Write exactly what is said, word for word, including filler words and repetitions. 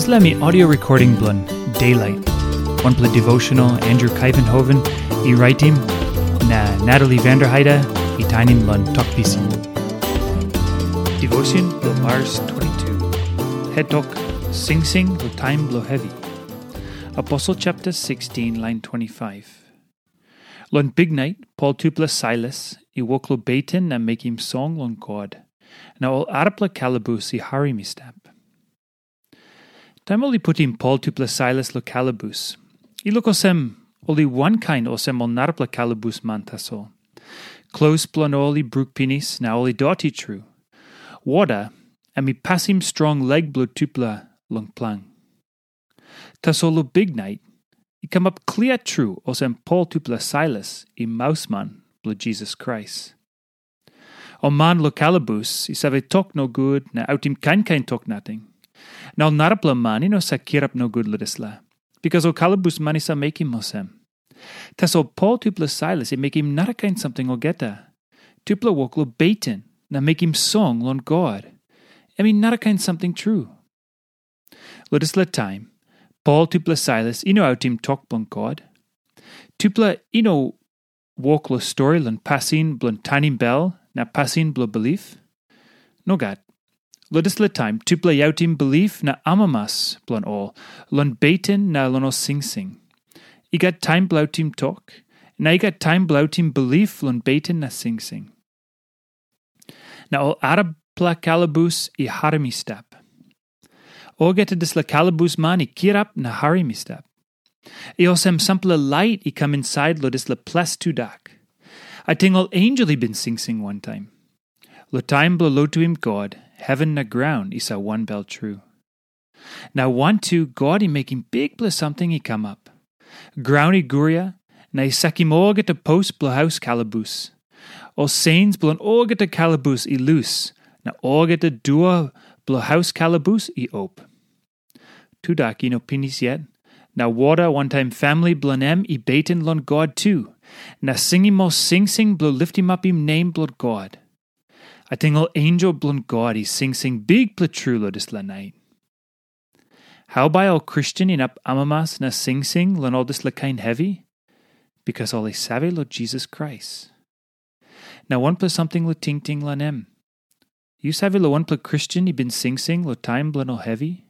Dispela mi audio recording bilong Daylight, wanpela devotional Andrew Kuyvenhoven i raitim, na Natalie Vanderheide i tainim long Tok Pisin. Devotion bilong Mars twenty-two. Het tok, Singsing long taim bilong hevi. Aposel chapter sixteen, line twenty-five. Long biknait, Pol tupela Sailas i wok long beten na mekim song long God, na ol arapela kalabus i harim i stap. Taim ol i putim Pol tupela Sailas long kalabus, i luk olsem ol i wankain olsem ol narapela kalabus man tasol. Klos bilong ol i bruk pinis na ol i doti tru. Wota em i pasim strong lek bilong tupela long plang. Tasol long biknait, i kamap klia tru olsem Pol tupela Sailas i mausman bilong Jisas Krais. Ol man long kalabus i save tok nogut na autim kain kain tok nating. Na ol narapela man i no save kirap nogut long dispela, bikas ol kalabus man i save mekim olsem. Tasol Pol tupela Sailas i mekim narakain samting olgeta. Tupela wok long beten na mekim song long God. Em i narakain samting tru. Long dispela taim, Pol tupela Sailas i no autim tok bilong God. Tupela i no wok long stori long pasin bilong tanim bel na pasin bilong bilip. Nogat. Long dispela taim, tupela i autim bilip na amamas bilong ol long beten na long ol singsing. I gat taim bilong autim tok, na i gat taim bilong autim bilip long beten na singsing. Na ol arapela kalabus i harim i stap. Olgeta dispela kalabus man i kirap na harim i stap. I olsem sampela lait i kam insait long dispela ples tudak. Ating ol ensel i bin singsing wantaim. Long taim bilong lotuim God, heven na graun i save wanbel tru. Na wantu God i mekim bikpela samting i kamap. Graun i guria, na i sakim olgeta pos bilong haus kalabus. Ol seins bilong olgeta kalabus i lus, na olgeta dua bilong haus kalabus i op. Tudak i no pinis yet, na wota wantaim famili bilong em i beten long God tu, na singim ol singsing bilong litimapim nem bilong God. Ating ol ensel bilong God i singsing bikpela tru long dispela nait. Hau bai ol Kristen inap amamas na singsing long ol dispela kain hevi? Bikas ol i save long Jisas Krais. Na wanpela samting long tingting long em. Yu save long wanpela Kristen i bin singsing long taim bilong ol hevi?